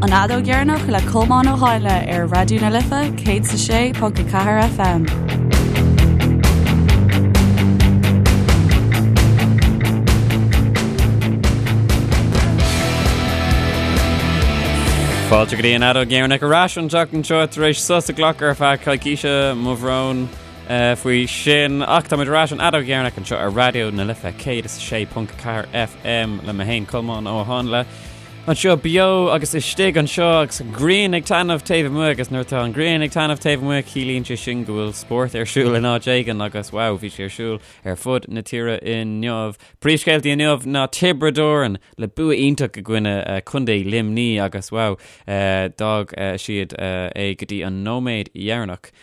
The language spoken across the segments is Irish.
An Fheadóg Dheireanach le Colmán Ó Háinle ar Raidió na Life 106.4 FM. Fáilte go dtí an Fheadóg Dheireanach ar ais an tseachtain seo tar éis sos a ghlacadh ar feadh coicíse mo bhrón faoi sin ach táimid ar ais an Fheadóg Dheireanach anseo ar Raidió na Life 106.4 FM le mé féin Colmán Ó Háinle. Anseo beo agus istigh anseo agus an ghrian ag taitneamh taobh amuigh agus nuair atá an ghrian ag taitneamh taobh amuigh ciallaíonn sé sin go bhfuil spórt ar siúl in áit éigin agus wow bhí sé ar siúl ar fud na tíre inniu. Príomhscéaltaí inniu ná Tiobraid Árann le bua iontach i gcoinne Contae Luimní agus wow d'fhág siad é go dtí an nóiméad dheireanach.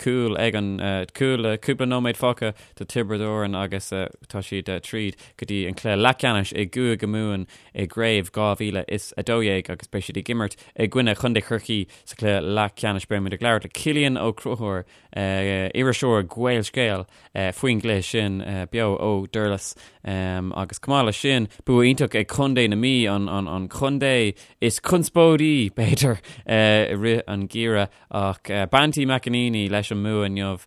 Cúl ag an cúl le cúpla nóiméad fágtha do Tiobraid Árann agus tá siad tríd go dtí an cluiche leathcheannais i gCúige Mumhan i gcraobh 2012 agus beidh siad ag imirt i gcoinne Chontae Chorcaí sa chluiche leathcheannais. Beidh muid ag labhairt le Cillian Ó Conchúir, iriseoir Gaelscéal, faoin gcluiche sin beo ó Durlas agus chomh maith leis sin, bua iontach ag Contae na Mí, an contae is conspóidí, b'fhéidir, i rith an gheimhridh. Ach Banty McEnaney leis an mbua inniu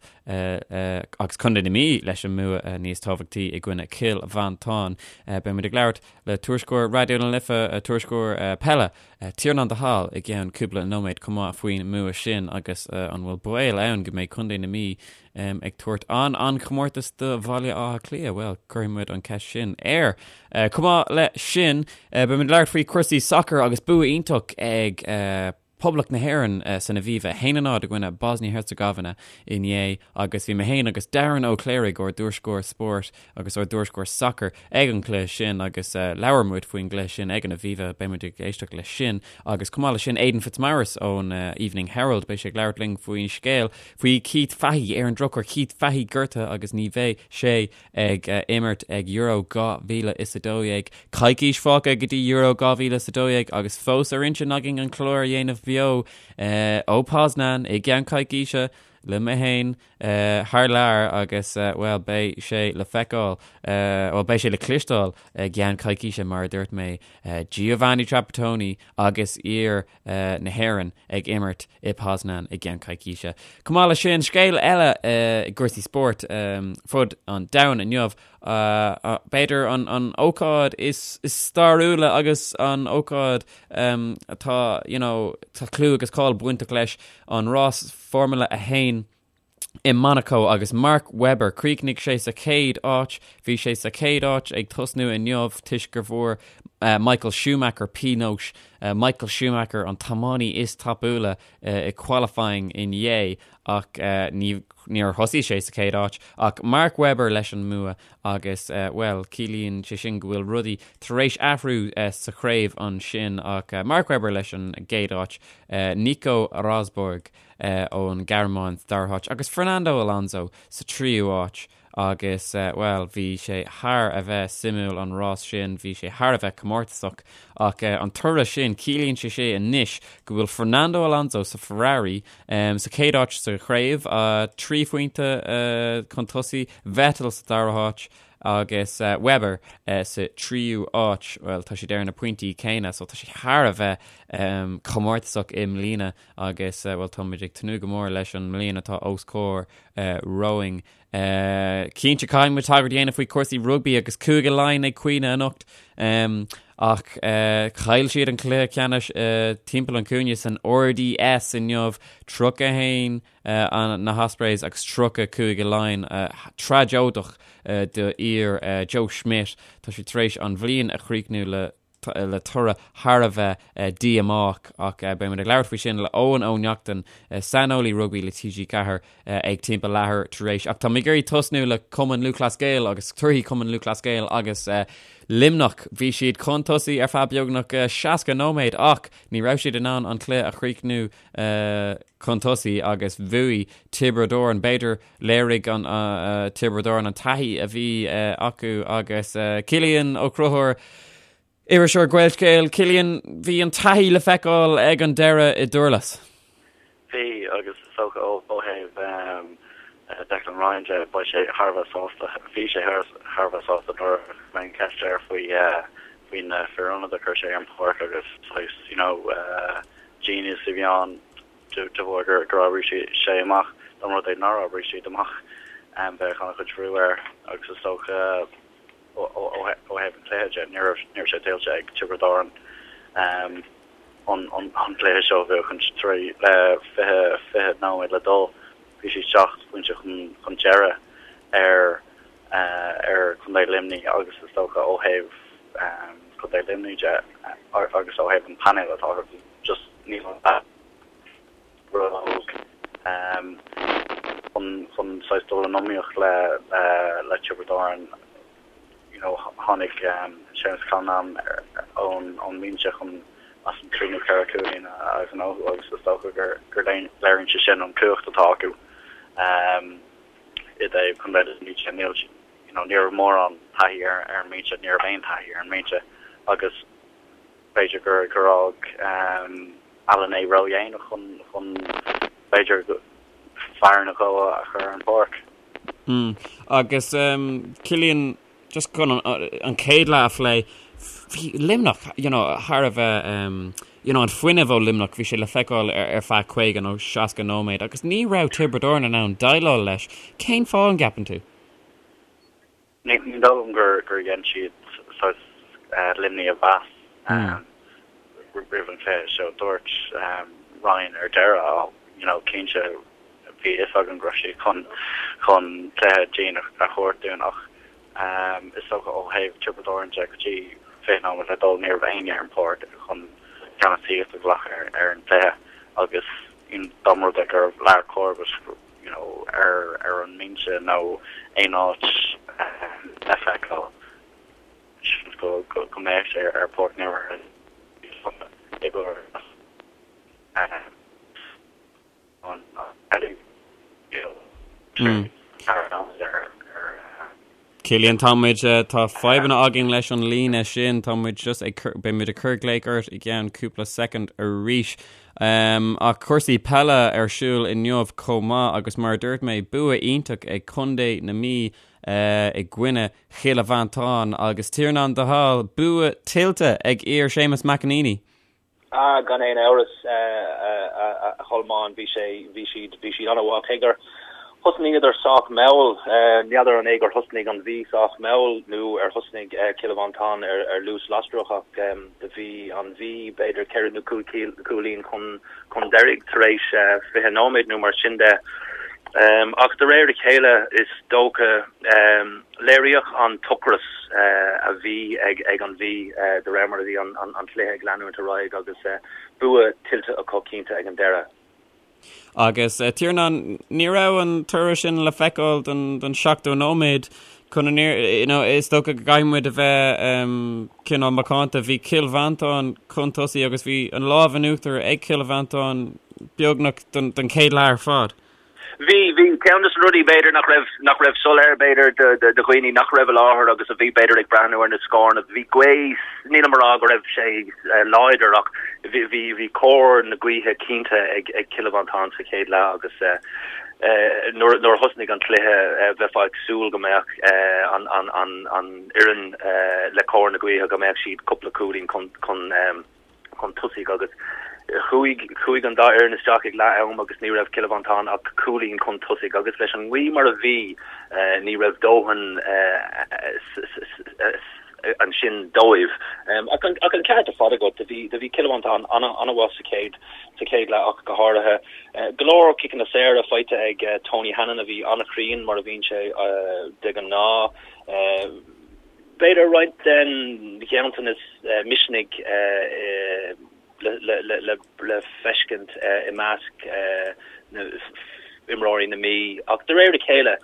agus Contae na Mí leis an mbua níos tábhachtaí i gcoinne Chill Mhantáin. Beidh muid ag labhairt le tuairisceoir Raidió na Life, tuairisceoir peile, Tiarnán de Hál i gceann cúpla nóiméad chomh maith faoin mbua sin agus an bhfuil baol ann go mbeidh Contae na Mí ag tabhairt an-an-chomórtas do Bhaile Átha Cliath? Bhuel, cuirfidh muid an cheist sin air. Chomh maith le sin, beidh muid ag labhairt faoi chúrsaí sacair agus bua iontach ag Poblacht na hÉireann san Aviva, 1-0 i gcoinne Bosnia-Herzegovina inné agus bhí mé féin agus Darren Ó Cléirigh, ár dtuairisceoir spóirt agus ár dtuairisceoir sacair ag an gcluiche sin agus labhair muid faoin gcluiche sin ag an Aviva, beidh muid ag éisteacht leis sin agus chomh maith leis sin Aidan Fitzmaurice ón Evening Herald, beidh sé ag labhairt linn faoin scéal faoi Keith Fahey, ar an drochuair Keith Fahey gortaithe agus ní bheidh sé ag imirt ag Euro 2012. Coicís fágtha go dtí Euro 2012 agus fós ar intinn againn an clár a dhéanamh beo ó Poznan i gceann coicíse le mé féin thar lear agus, bhuel, beidh sé le feiceáil, bhuel, beidh sé le cloisteáil i gceann coicíse mar a dúirt mé, Giovanni Trapattoni agus fhir na hÉireann ag imirt i Poznan i gceann coicíse. Chomh maith leis sin, scéal eile i gcúrsaí spóirt fud an domhain inniu, b'fhéidir an ócáid is stairiúla agus an ócáid atá, you know, tá clú agus cáil bainteach leis, an rás Formula 1. i Monaco agus Mark Webber, chríochnaigh sé sa chéad áit. Bhí sé sa chéad áit ag tosnú inniu toisc gur bhfuair Michael Schumacher pionós. Michael Schumacher an tiománaí is tapúla i qualifying inné ach ní níor thosaigh sé sa chéad áit ach Mark Webber leis an mbua agus bhuel ciallaíonn sé sin go bhfuil rudaí tar éis athrú sa chraobh ansin ach Mark Webber leis an gcéad áit, Nico Rosberg ón Ghearmáin sa dara háit agus Fernando Alonso sa tríú háit agus, bhuel, bhí sé thar a bheith suimiúil an rás sin, bhí sé thar a bheith comórtasach ach an toradh sin, ciallaíonn sé sé anois go bhfuil Fernando Alonso sa Ferrari sa chéad áit sa chraobh, 3 phointe chun tosaigh, Vettel sa dara háit agus Webber sa tríú háit, bhuel, tá siad ar na pointí céanna so tá sé thar a bheith comórtasach i mbliana. Agus, bhuel, táimid ag tnúth go mór leis an mbliain atá os comhair romhainn. Cinnte, caithfidh muid tagairt a dhéanamh faoi chúrsaí rugbaí agus Cúige Laighean ag caoineadh anocht. Ach chaill siad an cluiche ceannais timpeall an chúinne san RDS inniu, 31 na hOspreys agus 30 Cúige Laighean. Tragóideach do fhir Joe Schmidt. Tá siad tar éis an bhliain a chríochnú le le toradh thar a bheith díomách ach beidh muid ag labhairt faoi sin le Eoin Ó Neachtain, saineolaí rugbaí le TG4 ag timpeall leathuair tar éis. Ach tá mé ag iarraidh tosnú le Cumann Lúthchleas Gael agus torthaí Cumann Lúthchleas Gael agus Luimneach. Bhí siad chun tosaigh ar feadh beagnach 60 nóiméad ach ní raibh siad in ann an cluiche a chríochnú chun tosaigh agus bhuaigh Tiobraid Árann. B'fhéidir Léirigh an Tiobraid Árann an taithí a bhí acu agus Cillian Ó Conchúir, iriseoir Gaelscéal, Cillian, bhí an taithí le feiceáil ag an deireadh i nDurlas. Bhí, agus is dócha ó thaobh Declan Ryan de, beidh sé thar a bheith sásta, bhí sé thar a bheith sásta nuair a cuireadh an cheist air faoi faoi na fir ionaid a chuir sé ar an pháirc agus saghas, you know. know genius a bhí ann de bharr gur gur oibrigh sé amach dá mba rud é nár oibrigh siad amach bheadh an-chuid bhrú air agus is dócha ó thaobh an chluiche de ní raibh ní raibh sé tuillte ag Tiobraid Árann an an cluiche seo a bhuachaint tar éis le 20 20 nóiméad le dul bhí siad 7 bpointe chun chun deireadh ar ar Chontae Luimnigh agus is dócha ó thaobh Chontae Luimnigh de agus ó thaobh an painéil atá acu just níl an róg chun chun saghas dul in iomaíocht le le Tiobraid Árann. You know tháinig Séamus Callanan ón ón mbinse chun as an 3 nó 4 cúilín a ghnóthú agus is dócha gur gur léiríonn sé sin an cumhacht atá acu. I dtaobh Contae Luimnigh de, níl, you know, ní raibh mórán taithí ar ar an mbinse, ní raibh aon taithí ar an mbinse agus b'fhéidir gur gur fhág Allen é ródhéanach chun chun b'fhéidir fear nó dhó a chur ar an bpáirc. Mm. Agus Cillian, just chun an chéad leath a phlé, bhí Luimneach, you know, thar a bheith, you know, an fuinneamh ó Luimneach, bhí sé le feiceáil ar feadh 50 nó 60 nóiméad agus ní raibh Tiobraid Árann in ann déileáil leis. Cén fáth an gceapann tú? Ní dóigh liom gur gur dhein siad saghas Luimnigh a mheas roimh an chluiche seo. Dúirt Ryan ar deireadh, you know, cinnte bhí a fhios againn go raibh siad chun chun cluiche dian a thabhairt dúinn ach is dócha ó thaobh Tiobraid Árann de go dtí 20 nóiméad le dul ní raibh éinne ar an pháirc chun ceannasaíocht a ghlacadh ar an gcluiche agus dá mba rud é go raibh Lar Corbett you know ar ar an mbinse nó aon áit le feiceáil seans go go mbeadh sé ar páirc na i gcomhair Cillian, tá muid, tá fadhbanna againn leis an líne sin, tá muid just ag cur, beidh muid ag cur glaoch ort i gceann cúpla soicind arís. Um, ach cúrsaí peile ar siúl inniu chomh maith agus mar a dúirt mé, bua iontach ag Contae na Mí uh, i gcoinne Chill Mhantáin agus Tiarnán de hAll, bua tuillte ag fir Séamus McEneaney. Ah, gan aon amhras, a Cholmáin, bhí sé, bhí siad, bhí siad an-mhaith. Cé gur thosnaíodar sách mall, n'fheadar an é gur thosnaigh an Mhí sách mall nó ar thosnaigh Cill Mhantáin ar, ar luas lasrach ach do bhí an Mhí b'fhéidir ceithre nó cúig cúilín chun, chun deiridh tar éis 20 nóiméad nó mar sin de. Ach de réir a chéile is dócha, Léiríodh an t-ocras a bhí ag an Mhí de réir mar a bhí an cluiche ag leanúint ar aghaidh agus bua tuillte acu cinnte ag an deireadh. Agus Tiarnán, ní raibh an toradh sin le feiceáil don 70 nóiméad chun an you know, is dócha go gcaithfidh muid a bheith cineál macánta. Bhí Cill Mhantáin chun tosaigh agus bhí an lámh in uachtar ag Cill Mhantáin beagnach don chéad leath ar fad. Bhí, bhí. Ceann de na rudaí, b'fhéidir, nach raibh, nach raibh soiléir, b'fhéidir, do, do, do dhaoine nach raibh i láthair agus a bhí, b'fhéidir, ag breathnú ar na scóranna, bhí gaoth, nílim a rá go raibh sé láidir ach bhí, bhí, bhí cóir na gaoithe cinnte ag, ag Cill Mhantáin sa chéad leath agus nuair, nuair a thosnaigh an cluiche bheifeá ag súil go mbeadh an, an, an, an fhoireann le cóir na gaoithe, go mbeadh siad cúpla cúilín chun, chun. chun tosaigh agus chuaigh chuaigh an dá fhoireann isteach ag leath am agus ní raibh Cill Mhantáin ach cúilín chun tosaigh agus leis an ngaoth mar a bhí ní raibh dóthain ansin dóibh. Ach an ach an ceart ar fad agat, do bhí do bhí Cill Mhantáin an-mhaith sa chéad sa chéad leath ach go háirithe. Go leor ciceanna saora faighte ag Tony Hannon a bhí an-chruinn mar a bhíonn sé de ghnáth. B'fhéidir roinnt den ghanntanas misnigh le feiscint i measc imreoirí na Mí ach de réir a chéile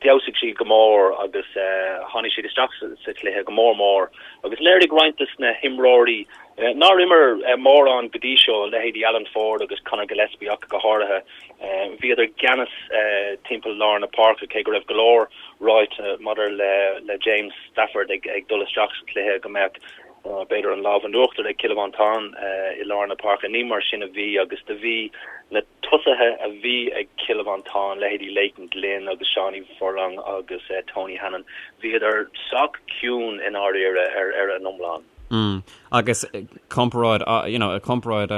d'fheabhsaigh siad go mór agus tháinig siad isteach sa chluiche go mór mór agus léirigh roinnt de na himreoirí nár imir mórán go dtí seo, leithéidí Alan Ford agus Conor Gillespie ach go háirithe. Bhíodar i gceannas timpeall lár na páirce cé go raibh go leor ráite maidir le James Stafford ag dul isteach sa chluiche go mbeadh b'fhéidir an lámh in uachtar ag Cill Mhantáin i lár na páirce. Ní mar sin a bhí agus do bhí na tosaithe a bhí ag Cill Mhantáin, leithéidí Leighton Glynn agus Seánie Furlong agus Tony Hannon, bhíodar sách ciúin i ndáiríre ar an iomlán. Mm. Agus comparáid, you know, comparáid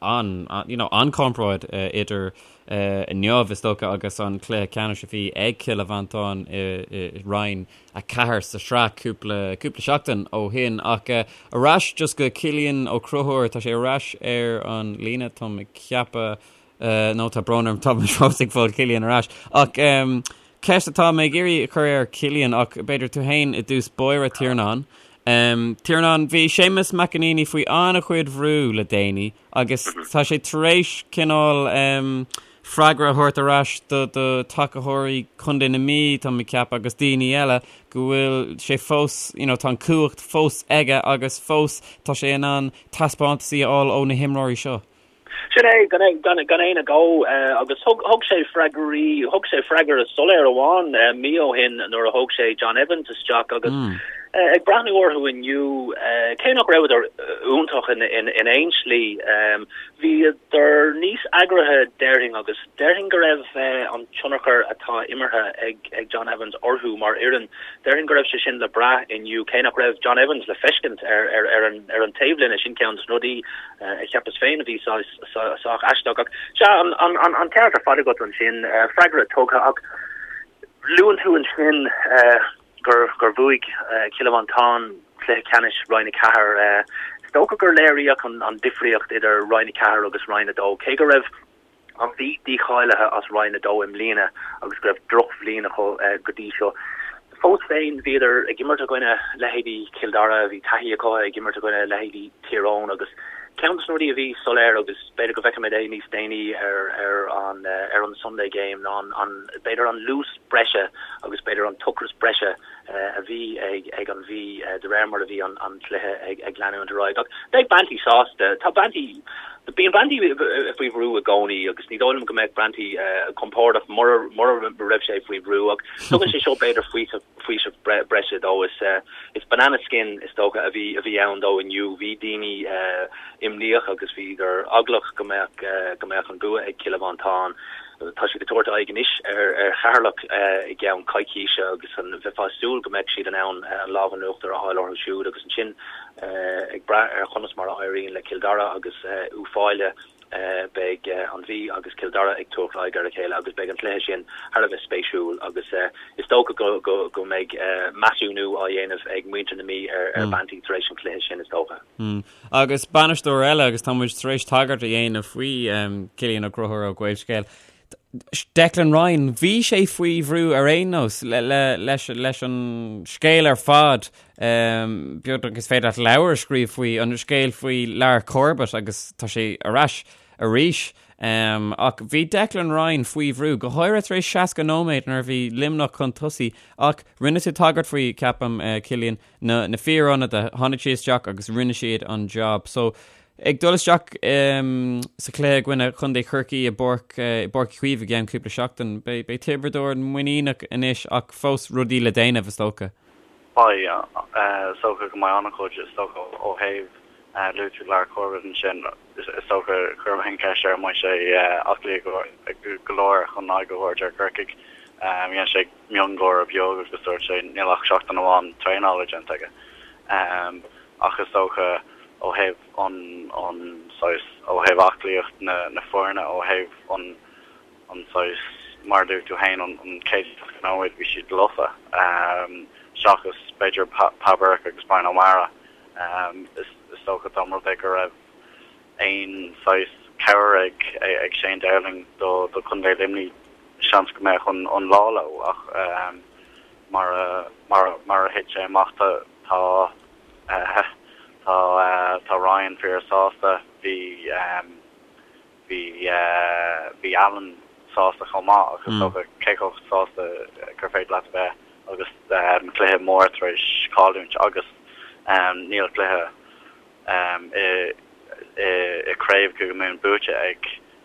an, you know, an comparáid idir inniu is dócha agus an cluiche ceannais a bhí ag Cill Mhantáin i Roinn 4 sa sraith cúpla cúpla seachtain ó shin ach ar ais just go Cillian Ó Conchúir tá sé ar ais ar an líne táim ag ceapadh nó tá brón orm tá mé fós ag fáil Cillian ar ais ach ceist atá mé ag iarraidh a chur ar Cillian ach b'fhéidir tú féin i dtús báire Tiarnán. Tiarnán, bhí Séamus McEneaney faoi an-chuid bhrú le déanaí agus tá sé tar éis cineál freagra a thabhairt ar ais do do tacaitheoirí Chontae na Mí, tá mé ag ceapadh, agus daoine eile go bhfuil sé fós, you know, tá an cumhacht fós aige agus fós tá sé in ann taispeántasaí a fháil ó na himreoirí seo. Sin é, gan gan aon agó, agus thug thug sé freagraí, thug sé freagra soiléir amháin mí ó shin nuair a thóg sé John Evans isteach agus ag breathnú orthu inniu, cé nach rabhadar iontach in in aon slí, bhíodar níos eagraithe déarfainn agus déarfainn go raibh an tionchar atá imeartha ag ag John Evans orthu mar fhoireann, déarfainn go raibh sé sin le brath inniu, cé nach raibh John Evans le feiscint ar ar ar an ar an taobhlíne, sin ceann de na rudaí a cheapas féin a bhí sách aisteach. Ach sea, an ceart ar fad agat ansin, freagra tugtha ach luann tú ansin gur gur bhuaigh Cill Mhantáin cluiche ceannais Roinn 4. Is dócha gur léiríodh an difríocht idir Roinn 4 agus Roinn 2, cé go raibh An Mhí dícháilithe as Roinn 2 i mbliana agus go raibh drochbhliain acu go dtí seo. Fós féin, bhíodar ag imirt i gcoinne leithéidí Chill Dara, bhí taithí acu ag imirt i gcoinne leithéidí Thír Eoghain agus ceann de na rudaí a bhí soiléir agus b'fhéidir go bhfeicfimid é níos déanaí ar ar an ar an Sunday Game ná an b'fhéidir an luas breise agus b'fhéidir an t-ocras breise a bhí ag an Mhí de réir mar a bhí an cluiche ag leanúint ar aghaidh. Ach beidh Banty sásta. Tá Banty, bíonn Banty faoi bhrú i gcónaí agus ní dóigh liom go mbeadh Banty compordach mura raibh sé faoi bhrú ach tugann sé seo b'fhéidir faoiseamh breise dó. Is banana skin is dócha a bhí a bhí ann dó inniu. Bhí daoine imníoch agus bhíodar eaglach go mbeadh go mbeadh an bua ag Cill Mhantáin. Tá siad ag tabhairt aghaidh anois ar Cheatharlach i gceann coicíse agus bheifeá ag súil go mbeadh siad in ann an lámh in uachtar a fháil orthu siúd agus ansin ag brath ar chonas mar a éiríonn le Cill Dara agus Uíbh Fhailí beidh an Mhí agus Cill Dara ag tabhairt aghaidh ar a chéile agus beidh an cluiche sin thar a bheith spéisiúil agus is dócha go mbeidh measúnú á dhéanamh ag muintir na Mí ar Banty tar éis an chluiche sin is dócha. Agus bainisteoir eile, agus tá muid tar éis tagairt a dhéanamh faoi Cillian Ó Conchúir ó Gaelscéal, Declan Ryan, bhí sé faoi bhrú ar aon nós leis leis an scéal ar fad, beagnach is féidir leat leabhar a scríobh faoi, an scéal faoi Lar Corbett agus tá sé ar ais arís. Ach bhí Declan Ryan faoi bhrú, go háirithe tar éis 60 nóiméad nuair a bhí Luimneach chun tosaigh, ach rinne tú tagairt faoi, ceapaim, Cillian, na na fíorionadaithe, tháinig siad isteach agus rinne siad an job. So, ag dul isteach sa chluiche i gcoinne Chontae Chorcaí i bPáirc i bPáirc Uí Chaoimh i gceann cúpla seachtain, beidh beidh Tiobraid Árann muiníneach anois ach fós rudaí le déanamh, is dócha. Beidh, is dócha go mbeidh an-chuid, is dócha ó thaobh luaigh tú Lar Corbett ansin, is dócha chuir mé an cheist air an mbeidh sé aclaí go leor chun aghaidh a thabhairt ar Chorcaigh. Dhein sé miongháire beag agus dúirt sé níl ach seachtain amháin traenála déanta aige. Ach is dócha ó thaobh an an saghas, ó thaobh aclaíocht na na foirne, ó thaobh an an saghas, mar a dúirt tú féin, an an chéad seasca nóiméad bhí siad lofa seachas b'fhéidir Pa Burke agus Brian O'Meara. Is is dócha dá mba rud é go raibh aon saghas cabhair ag ag Shane Dowling do do Chontae Luimnigh seans go mbeadh an an lá leo ach mar a mar mar a thit sé amach tá tá tá tá Ryan fíor sásta bhí bhí bhí Alan sásta chomh maith ach is dócha cé chomh sásta gur féidir leat a bheith agus cluiche mór tar éis cailliúint agus níl cluiche i gcraobh Chúige Mumhan buaite ag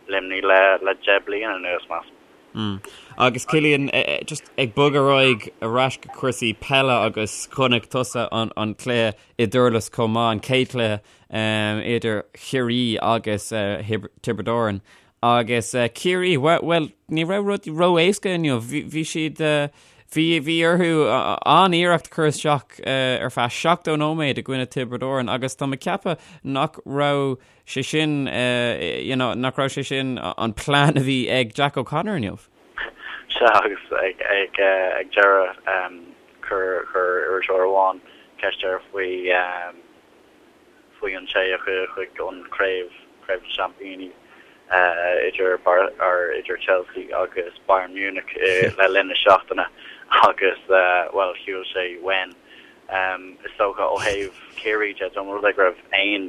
Luimnigh le 10 bliana anuas, measaim. Agus Cillian, just ag bogadh ar aghaidh ar ais go cúrsaí peile agus chonaic tusa an cluiche i dTurlas chomh maith, an chéad chluiche idir Chiarraí agus Tiobraid Árann. Agus Ciarraí, bhuel, ní raibh rudaí ró-éasca inniu. Bhí siad. Bhí bhí orthu an-iarracht a chur isteach ar feadh 70 nóiméad i gcoinne Tiobraid Árann agus tá mé ag ceapadh nach raibh sé sin you know nach raibh sé sin an plean a bhí ag Jack O'Connor inniu. Sea agus ag ag ag deireadh chuir chuir iriseoir amháin ceist air faoi faoi an té a chuaigh chuig an craobh, Craobh na Seaimpíní, idir idir Chelsea agus Bayern Munich le linn na seachtaine agus, bhuel, shiúil sé uainn. Is dócha ó thaobh Chiarraí de, dá mba rud é go raibh aon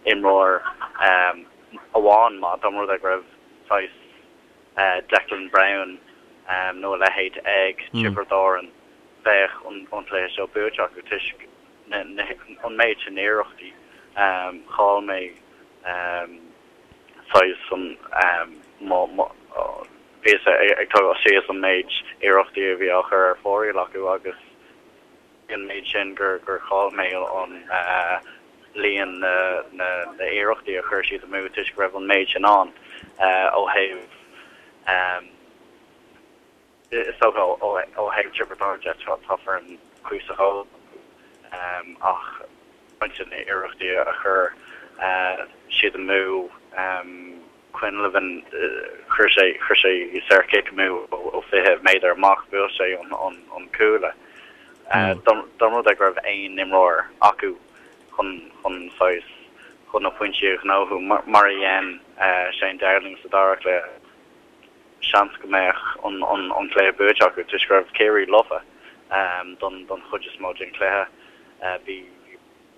imreoir amháin maith, dá mba rud é go raibh saghas Declan Browne nó a leithéid ag Tiobraid Árann, bheadh an cluiche seo buaite acu toisc an méid sin iarrachtaí. Chaill mé saghas an bhíos ag tógáil síos an méid iarrachtaí a bhí á chur ar fóraoil acu agus an méid sin gur chaill mé an líon na n-iarrachtaí a chuir siad amú toisc go raibh an méid sin ann ó thaobh Is dócha ó thaobh Tiobraid Árann de, tá foireann cuíosach óg acu ach roinnt de na hiarrachtaí a chuir siad amú, Quinlivan, chuir sé chuir sé saorchic amú ó 20 méadar amach, bhuail sé an cuaille. Dá mba rud é go raibh aon imreoir acu chun chun saghas chun na pointí a ghnóthú mar a dhein Shane Dowling sa dara cluiche, seans go mbeadh an cluiche buaite acu toisc go raibh Ciarraí lofa don don chuid is mó den chluiche. Bhí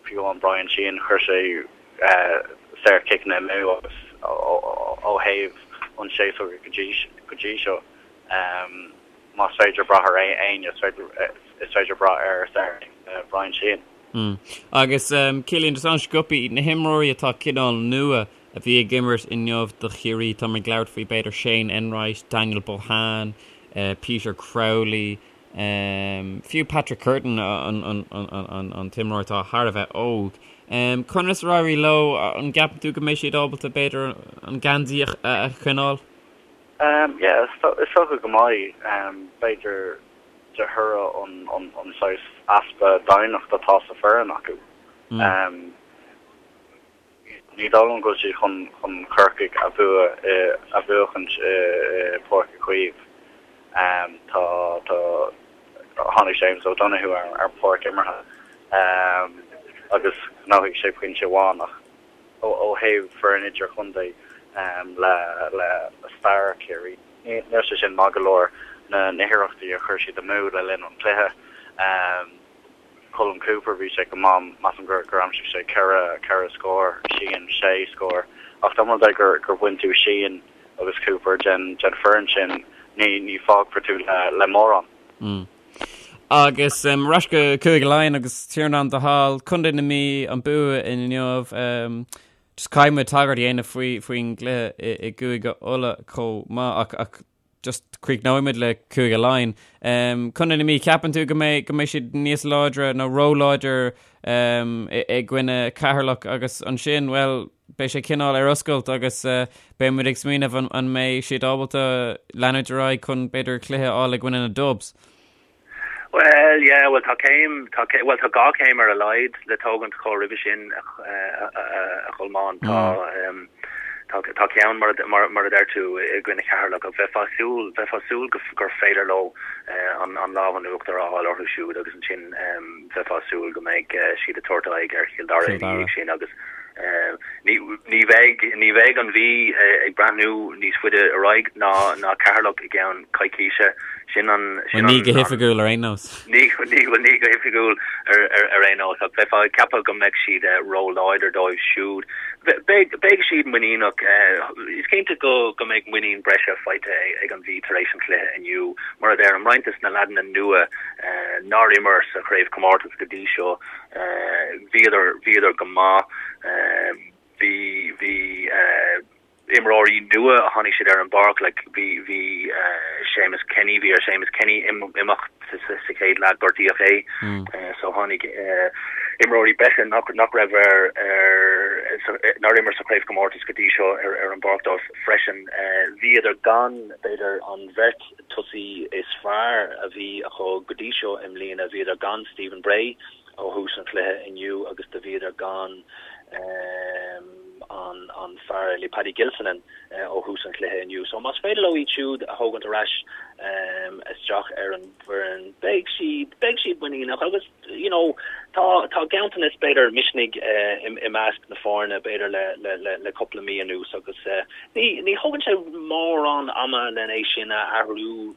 fiú amháin Bryan Sheehan, chuir sé saorchiceanna amú agus ó thaobh an séasúr go dtí go dtí seo más féidir brath ar éinne is féidir brath ar Bryan Sheehan. Agus Cillian, just an-sciobtha, na himreoirí atá cineál nua a bhí ag imirt inniu do Chiarraí, tá mé ag labhairt faoi b'fhéidir Shane Enright, Daniel Bohane, Peter Crowley, fiú Patrick Curtin an t-imreoir atá thar a bheith óg. Conas ar éirigh leo? An gceapann tú go mbeidh siad ábalta b'fhéidir an geansaí a choinneáil? Yeah, is dócha go mbeidh. B'fhéidir de thoradh an saghas easpa doimhneacht atá sa foireann acu. Ní dóigh liom go bhfuil siad chun chun Corcaigh a bhua a bhuachaint i Páirc Uí Chaoimh. Tá tá tháinig James O'Donoghue ar ar an pháirc imeartha agus ghnóthaigh sé pointe amháin ach ó ó thaobh foireann idirchontae le le stair Chiarraí níl sé sin maith go leor na na hiarrachtaí a chuir siad amú le linn an chluiche. Colm Cooper, bhí sé go maith, measaim gur gur aimsigh sé 4, 4 scór, Sheehan 6 scór. Ach dá mba rud é gur gur bhain tú Sheehan agus Cooper den den foireann sin, ní ní fágfar tú le le mórán. Mm. Agus um, ar ais go Cúige Laighean agus Tiarnán de Hál, Contae na Mí an bua inniu. Um, just caithfidh muid tagairt a dhéanamh faoi faoin gcluiche i, i gCúige Uladh chomh maith ach ach just críochnóidh muid le Cúige Laighean. Um, Contae na Mí, ceapann tú go mbeidh go mbeidh siad níos láidre nó ró-láidir um, i, i gcoinne Ceatharlach agus ansin, well, beidh sé cineál ar oscailt agus uh, beidh muid ag smaoineamh an, an mbeidh siad ábalta leanúint ar aghaidh chun b'fhéidir cluiche a fháil i gcoinne na Dubs. Well, yeah, well tá céim, tá cé, well tá dhá chéim ar a laghad le tógaint chomh roimhe sin a, a, a, a Cholmáin. Tá, um, tá, tá ceann mar, mar, mar a deir tú i gcoinne Cheatharlach ach bheifeá ag súil, bheifeá ag súil go, gur féidir leo uh, an, an lámh in uachtar a fháil orthu siúd agus ansin um, bheifeá ag súil go mbeidh uh, siad ag tabhairt aghaidh ar Chill Dara ina dhiaidh sin agus uh, ní, ní bheidh, ní bheidh an Mhí uh, ag breathnú níos faide ar aghaidh ná, ná Ceatharlach i gceann coicíse. Sin an, sin Ní go hoifigiúil ar aon nós. Ní, ní, bhuel ní go hoifigiúil ar, ar, ar aon nós, ach bheifeá ag ceapadh go mbeadh siad ró-láidir dóibh siúd. Beidh, beidh siad muiníneach. Is cinnte go, go mbeidh muinín breise faighte ag an Mhí tar éis an chluiche inniu. Mar a deirim, roinnt des na leaideanna nua nár imir sa chraobhchomórtas go dtí seo, bhíodar, bhíodar go maith. Bhí, bhí, imreoirí nua a tháinig siad ar an bpáirc like bhí bhí Séamus Kenny bhí ar Séamus Kenny imeacht sa chéad leath gortaíodh é so tháinig imreoirí breise nach nach raibh ar ar nár imir sa chraobhchomórtas go dtí seo ar an bpáirc dóibh freisin. Bhíodar gan, b'fhéidir, an bheirt tosaí is fearr a bhí acu go dtí seo i mbliana. Bhíodar gan Stephen Bray ó thús an chluiche inniu agus do bhíodar gan an fear eile, Paddy Gilsenan, ó thús an chluiche inniu. So más féidir leo iad siúd a thógaint ar ais isteach ar an bhfoireann, beidh siad, beidh siad muiníneach agus you know tá, tá ganntanas b'fhéidir misnigh i measc na foirne b'fhéidir le, le, le, le cúpla mí anuas agus ní, ní thógann sé mórán ama len é sin a athrú.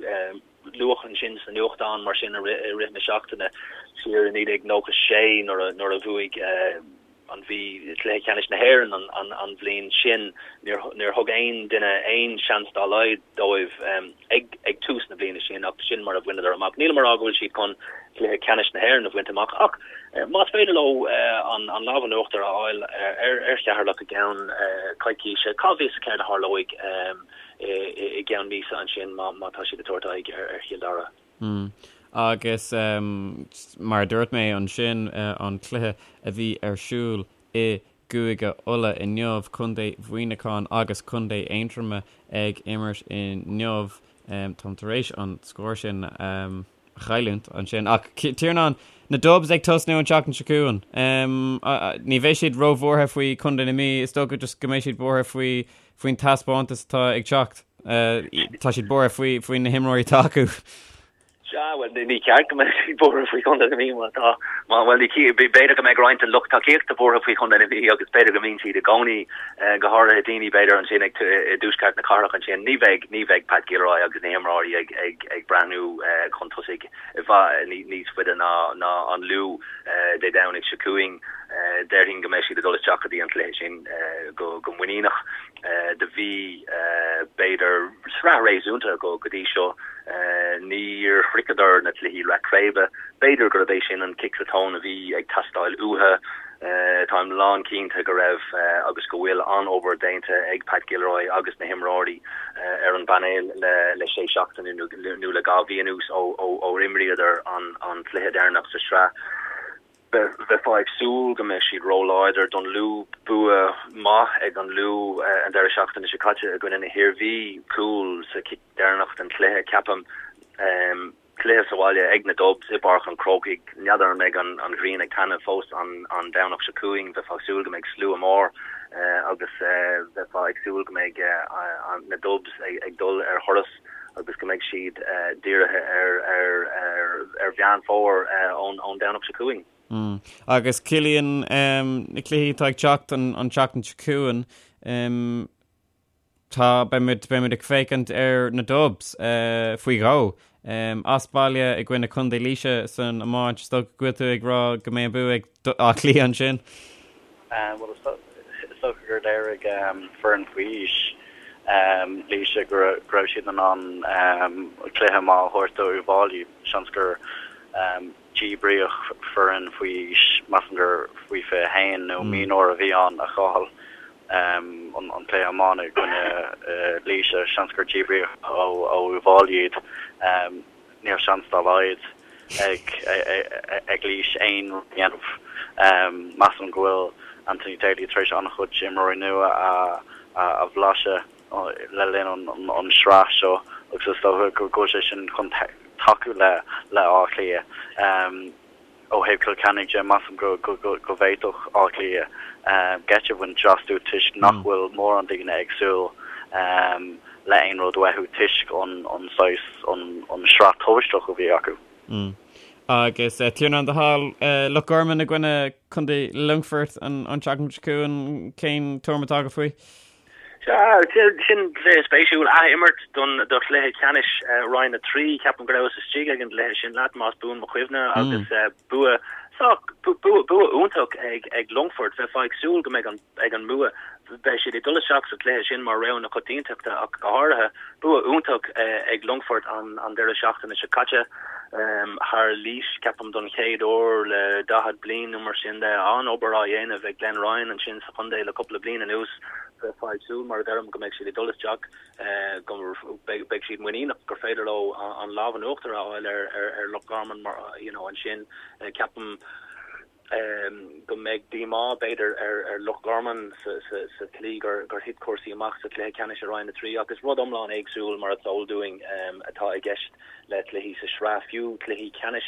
Luadh ansin sna nuachtáin mar sin i rith na seachtaine siar i 1996 nuair a, nuair a bhuaigh an Mhí cluiche ceannais na hÉireann an bhliain sin. Níor thug aon duine aon seans dá laghad dóibh ag tús na bliana sin ach sin mar a bhaineadar amach. Nílim a rá go bhfuil siad chun cluiche ceannais na hÉireann a bhaint amach ach más féidir leo an lámh in uachtar a fháil ar Cheatharlach i gceann coicíse, cá bhfios céard a tharlóidh i gceann míosa ansin má tá siad ag tabhairt aghaidh ar Chill Dara. Agus mar a dúirt mé ansin, an cluiche a bhí ar siúl i gCúige Uladh inniu, Contae Mhuineacháin agus Contae Aontroma ag imirt inniu. Táim tar éis an scór sin a chailliúint ansin. Ach Tiarnán, na Dubs ag tosnú an tseachtain seo chugainn. Ní bheidh siad róbhuartha faoi Chontae na Mí, is dócha just go mbeidh siad buartha faoi faoin taispeántas atá ag teacht. Tá siad buartha faoi faoi na himreoirí atá acu. Sea, bhuel, ní ceart go mbeadh siad buartha faoi Chontae na Mí má tá, má, bhuel, ní, b'fhéidir go mbeidh roinnt den lucht tacaíochta buartha faoi Chontae na Mí agus b'fhéidir go mbíonn siad i gcónaí, go háirithe daoine b'fhéidir ansin ag, i dtuaisceart na cathrach ansin. Ní bheidh, ní bheidh Pat Gilroy agus na himreoirí ag, ag, ag breathnú chun tosaigh i bhfad níos faide ná, ná an Lú Dé Domhnaigh seo chugainn. Déarfainn go mbeidh siad ag dul isteach go dtí an cluiche sin go muiníneach. Do bhí, b'fhéidir, sraith réasúnta acu go dtí seo. Níor shroicheadar na cluichí leath craoibhe. B'fhéidir gurb é sin an cic sa tóin a bhí ag teastáil uathu. Táim lán cinnte go raibh agus go bhfuil an-obair déanta ag Pat Gilroy agus na himreoirí ar an bpainéal le sé seachtaine nó le 2 mhí anuas ó imríodar an cluiche deireanach sa sraith. Bheifeá ag súil go mbeadh siad róláidir don Lú. Bua maith ag an Lú an deireadh seachtaine seo caite i gcoinne na hIarmhí, cúl sa chic deireanach den chluiche, ceapaim. Cluiche sa bhaile ag na Dubs i bPáirc an Chrócaigh. N'fheadar an mbeidh an ghrian ag taitneamh fós an Domhnach seo chugainn. Bheifeá ag súil go mbeidh slua mór agus bheifeá ag súil go mbeidh na Dubs ag dul ar thuras. agus go mbeidh siad dírithe ar Mheán Fómhair ón Domhnach seo chugainn. Agus Cillian, na cluichí atá ag teacht an tseachtain seo chugainn, tá, beimid, beimid ag féachaint ar na Dubs faoi dhó, as baile i gcoinne Contae Laoise san iomáint. Is dócha go bhfuil tú ag rá go mbeidh an bua ag Áth Cliath ansin? Bhuel, is dócha gur léirigh foireann faoi aois Laoise go raibh siad in ann cluiche maith a thabhairt do Uíbh Fhailí. Seans gur díbríodh foireann faoi aois, measaim gur faoi 21 nó mionúir a bhí ann, a chaill an cluiche iomána i gcoinne Laoise. Seans gur díbríodh ó Uíbh Fhailí iad. Níl seans dá laghad ag Laois aon rud a dhéanamh. Measaim go bhfuil Anthony Daly tar éis an-chuid imreoirí nua a bhlaiseadh le linn an sraith seo agus is dócha go bhfuil sé sin chun tacú le Áth Cliath. Ó thaobh Cill Chainnigh de, measaim go bhféadfadh Áth Cliath geit a bhaint astu toisc nach bhfuil mórán daoine ag súil le aon rud uathu toisc an saghas, an sraith tubaisteach a bhí acu. Agus Tiarnán do thoil, Loch Garman i gcoinne Contae Longfoirt an tseachtain seo chugainn, cén tuairim atá agat faoi? Sea, sin cluiche spéisiúil. Ath-imirt don do chluiche ceannais Roinn 3. Ceapaim go rabhas istigh ag an gcluiche sin leat, más buan mo chuimhne, agus bua sách, bua, bua iontach ag ag Longfort. Bheifeá ag súil go mbeidh an ag an mbua. Beidh siad ag dul isteach sa chluiche sin mar rogha na coitiantachta ach go háirithe. Bua iontach ag Longfort an an deireadh seachtaine seo caite thar Laois, ceapaim don chéad uair le 40 bliain nó mar sin de. An-obair á dhéanamh ag Glenn Ryan ansin sa chontae le cúpla bliain anuas. Bheifeá ag súil, mar a deirim, go mbeidh siad ag dul isteach, go mbeidh siad muiníneach gur féidir leo an lámh in uachtar a fháil ar Loch Garman mar, you know, ansin. Ceapaim. go mbeidh díomá, b'fhéidir, ar Loch Garman sa tslí gur thit cúrsaí amach sa chluiche ceannais i Roinn 3 ach is rud iomlán éagsúil, mar is eol dúinn, atá i gceist le cluichí sa sraith, fiú cluichí ceannais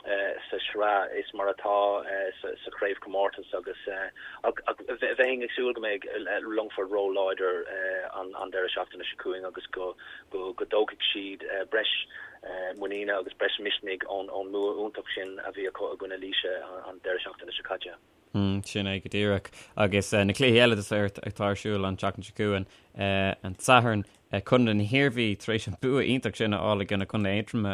sa sraith, is mar atá sa chraobhchomórtas agus ach bheinn ag súil go mbeidh Longfort ró-láidir an deireadh seachtaine seo chugainn agus go dtógfaidh siad breis muiníne agus breis misnigh ón mbua iontach sin a bhí acu i gcoinne Laoise an deireadh seachtaine seo caite. Sin é go díreach. Agus na cluichí eile atá ar siúl an tseachtain seo chugainn, an Satharn, Contae na hIarmhí tar éis an bua iontach sin a fháil i gcoinne Contae Aontroma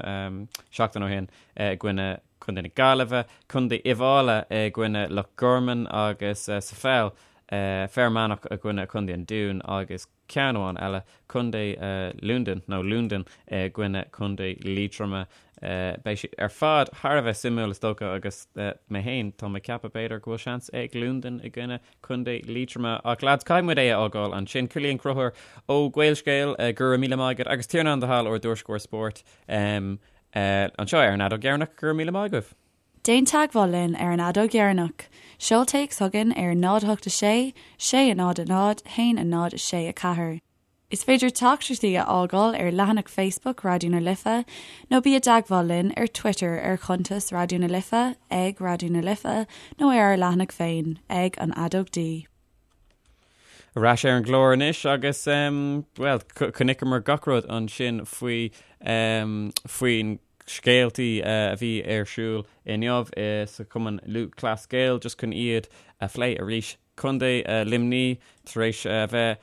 seachtain ó shin i gcoinne Contae na Gaillimhe, Contae Uíbh Fhailí i gcoinne Loch Garman agus sa pheil, Fear Manach i gcoinne Contae an Dúin agus ceann amháin eile, Contae Lúndain, nó Lúndain i gcoinne Contae Liatroma. Beidh siad ar fad thar a bheith suimiúil is dócha agus mé féin, tá mé ag ceapadh b'fhéidir go bhfuil seans ag Lúndain i gcoinne Contae Liatroma. Ach lads, caithfidh muid é a fhágáil ansin. Cillian Ó Conchúir ó Gaelscéal, go raibh míle maith agat agus Tiarnán de hAll ár dtuairisceoir spóirt anseo ar an Fheadóg Dheireanach, go raibh míle maith agaibh. Déan teagmháil linn ar an Fheadóg Dheireanach. Seol téacs chugainn ar 0 8 6 6 0 0 1 0 6 4. Is féidir teachtaireachtaí a fhágáil ar leathanach Facebook Raidió na Life nó bí i dteagmháil linn ar Twitter ar chuntas Raidió na Life, ag Raidió na Life, nó ar ár leathanach féin, ag An Fheadóg D. Ar ais ar an gclár anois agus, bhuel, chonaiceamar gach rud ansin faoi, faoin scéaltaí a bhí ar siúl inniu sa Chumann Lúthchleas Gael just chun iad a phlé arís. Contae Luimní tar éis a bheith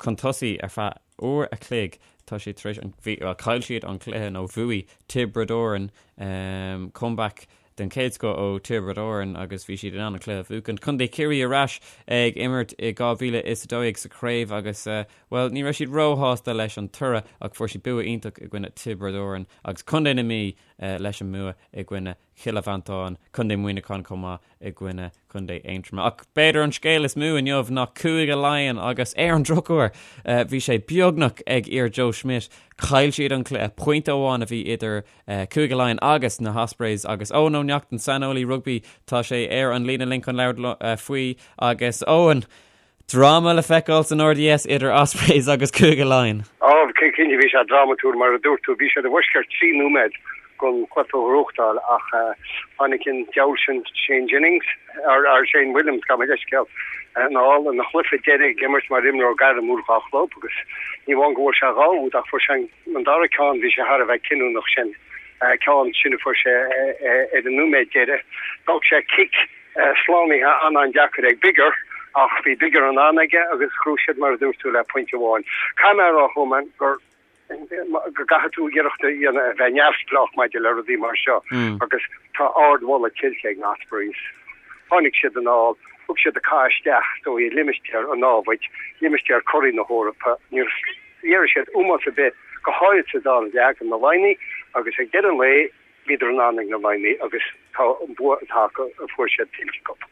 chun tosaigh ar feadh uair a chloig tá siad tar éis an bhí bhuel chaill siad an cluiche nó bhuaigh Tiobraid Árann comeback den chéad scoth ó Tiobraid Árann agus bhí siad in ann an cluiche a bhuachan. Contae Chiarraí ar ais ag imirt i 2012 sa chraobh agus Bhuel, ní raibh siad róshásta leis an toradh ach fuair siad bua iontach i gcoinne Tiobraid Árann agus Contae na Mí leis an mbua i gcoinne Chille Mhantáin, Contae Mhuineacháin chomh maith i gcoinne Contae Aontroma. Ach b'fhéidir an scéal is mó inniu ná Cúige Laighean agus ar an drochuair bhí sé beagnach ag fhir Joe Schmidt. Chaill siad an cluiche, pointe amháin a bhí idir Cúige Laighean agus na hOspreys agus Eoin Ó Neachtain, saineolaí rugbaí, tá sé ar an líne linn chun labhairt faoi agus Eoin, Dráma le feiceáil san RDS idir Ospreys agus Cúige Laighean. Á, cinnte bhí sé drámatúil, mar a dúirt tú. Bhí siad i bhfoisceacht 3 nóiméad den chluiche a ghnóthachtáil ach tháinig an diabhal sin Shane Jennings, or Shane Williams, gabh mo leithscéal, anall ina chluiche deiridh ag imirt mar imreoir gairmiúil dhá chlub agus ní amháin go bhfuair sé dhá úd ach fuair sé an dara ceann, bhí sé thar a bheith cinniúnach sin ceann sin a fuair sé ar an nóiméad deiridh. D'fhág sé cic slánaithe an-an-deacair ag Biggar ach bhí Biggar in ann aige agus ghnóthaigh siad mar a dúirt tú le pointe amháin. Caithfidh mé a rá chomh maith gur go gcaithfidh tú iarracht a dhéanamh a bheith neamhspleách maidir le rudaí mar seo agus tá ardmholadh tuillte ag na Ospreys. Tháinig siad anall, thug siad an cath isteach is dóigh i limistéar an námhaid, limistéar curaidh na hEorpa. Níor léirigh siad ómós ar bith, go háirid sa dara leath, do na Laighnigh agus ag deireadh an lae, Bhíodar in ann ag na Laighnigh agus tá an bua atá acu a fuair siad tuillte acu.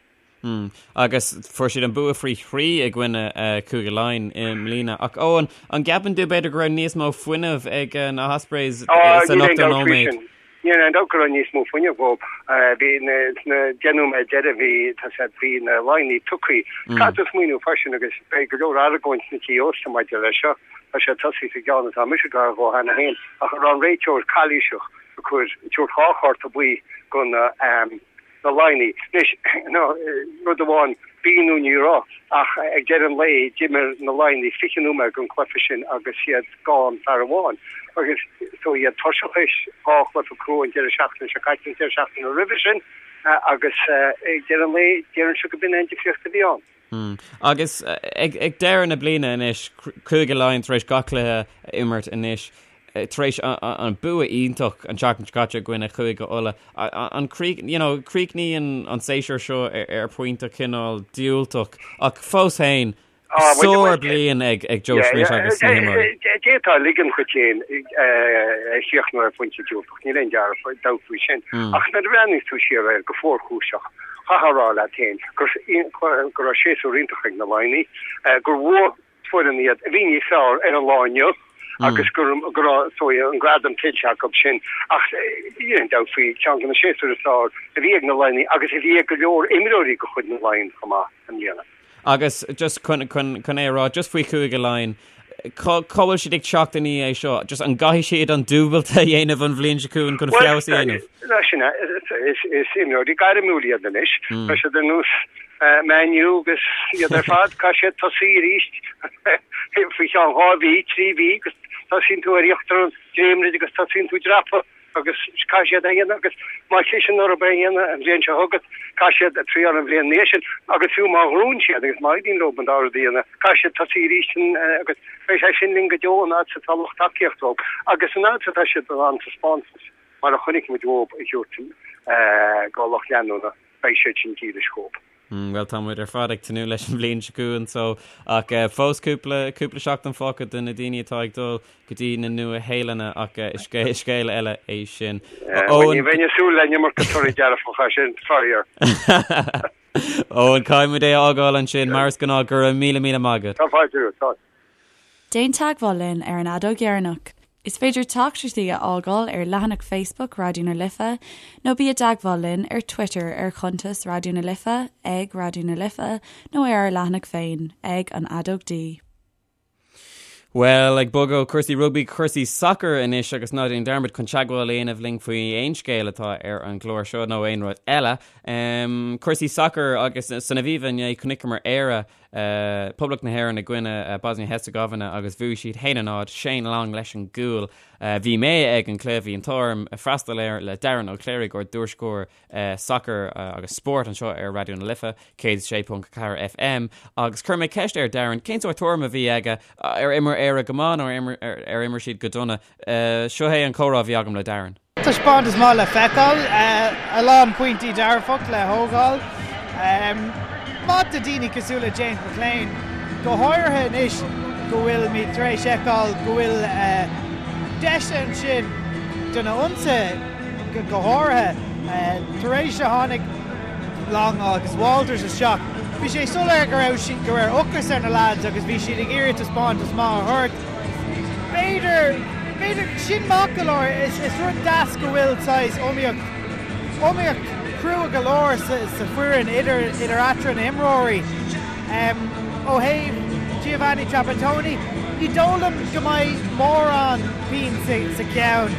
Agus fuair siad an bua faoi thrí i gcoinne Cúige Laighean i mbliana. Ach Eoin, an gceapann tú b'fhéidir go raibh níos mó fuinnimh ag na hOspreys san ochtó nóiméad? Níl aon dabht go raibh níos mó fuinnimh acu. Bhí sna 10 nóiméad deiridh bhí tá sé bhí na Laighnigh tugtha. Caithfidh tú smaoineamh freisin agus beidh go leor argóint sna tithe ósta maidir leis seo. Tá sé tosaithe sa gceann atá mise gar dhó cheana féin ach an raibh an réiteoir calaoiseach ag cur tabhairt dhá chárta buí go na na Laighnigh. Anois, no, rud amháin, bhí nó ní raibh, ach ag deireadh an lae d'imir na Laighnigh 20 nóiméad den chluiche sin agus iad gan fear amháin. Agus so iad tuirseach théis dhá chluiche crua an deireadh seachtaine seo caite, an deireadh seachtaine roimhe sin agus ag deireadh an lae déarfainnse go b'in é an difríocht a bhí ann. Agus ag deireadh na bliana anois, Cúige Laighean tar éis gach cluiche a imirt anois, tar éis an bua iontach an tseachtain seo caite i gcoinne Chúige Uladh, an you know, críochnaíonn an séasúr seo ar phointe cineál diúltach ach fós féin, sár-bhliain ag Joe Schmidt agus na himreoirí. D'fhéadfá ligean dhuit féin a chríochnú ar phointe diúltach, níl aon dabht faoi sin. Ach nuair a bhreathnaíos tú siar air go fuarchúiseach, Chaithfeá a rá leat féin go raibh séasúr iontach ag na Laighnigh, gur bhuaigh foireann iad a bhí níos fearr ar an lá inniu. agus go raibh is dóigh an gradam tuillte acu sin ach níl aon dabht faoi ceann de na séasúir is fearr a bhí ag na Laighnigh agus a bhí ag go leor imreoirí de chuid na Laighean chomh maith i mbliana. Agus just chun chun é a rá just faoi Chúige Laighean, cá cá bhfuil siad ag teacht i ndiaidh é seo? Just an gcaithfidh siad an dúbailt a dhéanamh an bhliain seo chugainn chun feabhas a dhéanamh? Bhuel, sin é. Is imreoirí gairmiúil iad anois. Tá siad ar nós Man U agus iad ar fad, caithfidh siad tosaí arís faoi cheann 2 mhí, 3 mhí agus tosaíonn tú ar íochtar an dréimire agus tosaíonn tú ag dreapadh agus caithfidh siad é a dhéanamh agus má chliseann orthu é a dhéanamh an bhliain seo chugat, caithfidh siad triáil an bhliain ina dhiaidh sin agus fiú má ghnóthaíonn siad agus má éiríonn leo an dá rud a dhéanamh, caithfidh siad tosaí arís agus beidh sé sin linn go deo an fhad is atá lucht tacaíochta dóibh agus an fhad is atá siad in ann taispeántas mar a chonaic muid uathu a thabhairt do lucht leanúna. beidh siad sin dílis dhóibh. Bhuel, tá muid ar fad ag tnúth leis an bhliain seo chugainn so, ach fós cúpla, cúpla seachtain fágtha do na daoine atá ag dul go dtí na Nua-Shéalainne ach is scéal eile é sin. Eoin. Ní bheinn ag súil le an iomarca torthaí dearfacha sin, faraor. Eoin, caithfidh muid é a fhágáil ansin, mar is gnáth, go raibh míle míle maith agat. Tá fáilte romhat, tá. Déan teagmháil linn ar an Fheadóg Dheireanach. Is féidir teachtaireachtaí a fhágáil ar leathanach Facebook Raidió na Life nó bí i dteagmháil linn ar Twitter ar chuntas Raidió na Life ag Raidió na Life nó ar ár leathanach féin ag An Fheadóg D. Bhuel, ag bogadh ó chúrsaí rugbaí go cúrsaí sacair anois agus ná déan dearmad chun teagmháil a dhéanamh linn faoi aon scéal atá ar an gclár seo nó aon rud eile. Cúrsaí sacair agus san Aviva inné chonaiceamar Éire Poblacht na hÉireann i gcoinne Bosnia Herzegovina agus bhuaigh siad 1-0, Shane Long leis an gcúl. Bhí mé ag an cluiche, bhí an t-ádh orm freastal air le Darren Ó Cléirigh, ár dtuairisceoir sacair agus spóirt anseo ar Raidió na Life, 106.4 FM, agus chuir mé ceist ar Darren cén sórt tuairim a bhí aige, ar imir Éire go maith nó ar imir siad go dona. Seo é an comhrá a bhí agam le Darren. Taispeántas maith le feiceáil, a lán pointí dearfach le thógáil. Maith do daoine cosúil le James McClean, go háirithe anois go bhfuilimid tar éis fheiceáil go bhfuil deis ansin do na hionsaithe go háirithe tar éis a tháinig Long agus Walters isteach. Bhí sé soiléir go raibh go raibh ocras ar na lads agus bhí siad ag iarraidh taispeántas maith a thabhairt. B'fhéidir, b'fhéidir, sin maith go leor, is, is rud deas go bhfuil saghas iomaíocht, iomaíocht chrua go leor sa, sa foireann idir, idir eatarthu na himreoirí. Ó thaobh Giovanni Trapattoni, ní dóigh liom go mbeidh mórán pian sa, sa cheann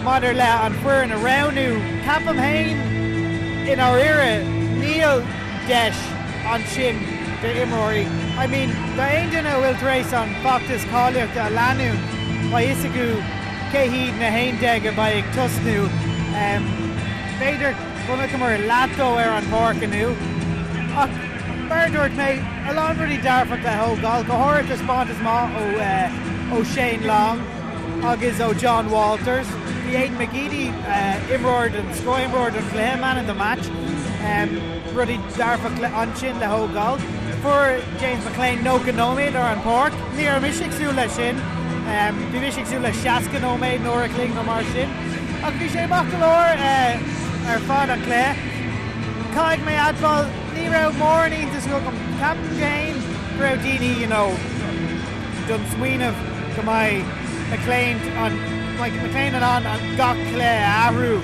maidir le an foireann a roghnú. Ceapaim féin, i ndáiríre, níl deis. ansin d'imreoirí. I mean, d'aon duine a bhfuil tar éis an feachtas cáilíochta a leanúint, beidh fhios acu cé hiad na 11 a bheidh ag tosnú. B'fhéidir chonaiceamar leath dó ar an bpáirc inniu. Ach mar a dúirt mé, a lán rudaí dearfach le thógáil, go háirithe taispeántas maith ó Shane Long agus ó Jon Walters. Bhí Aiden McGeady, imreoir den scoth, imreoir don chluiche, man of the match. Rudaí dearfach ansin le thógáil. Fuair James McClean 90 nóiméad ar an bpáirc. Ní raibh mise ag súil leis sin. Bhí mise ag súil le 60 nóiméad nó uair a chloig nó mar sin. Ach bhí sé maith go leor ar fad an cluiche. Caithfidh mé admháil, ní raibh mórán iontas agam. Ceapaim féin go raibh daoine, you know, don smaoineamh go mbeidh McClean an, mbeidh McClean in ann gach cluiche a athrú.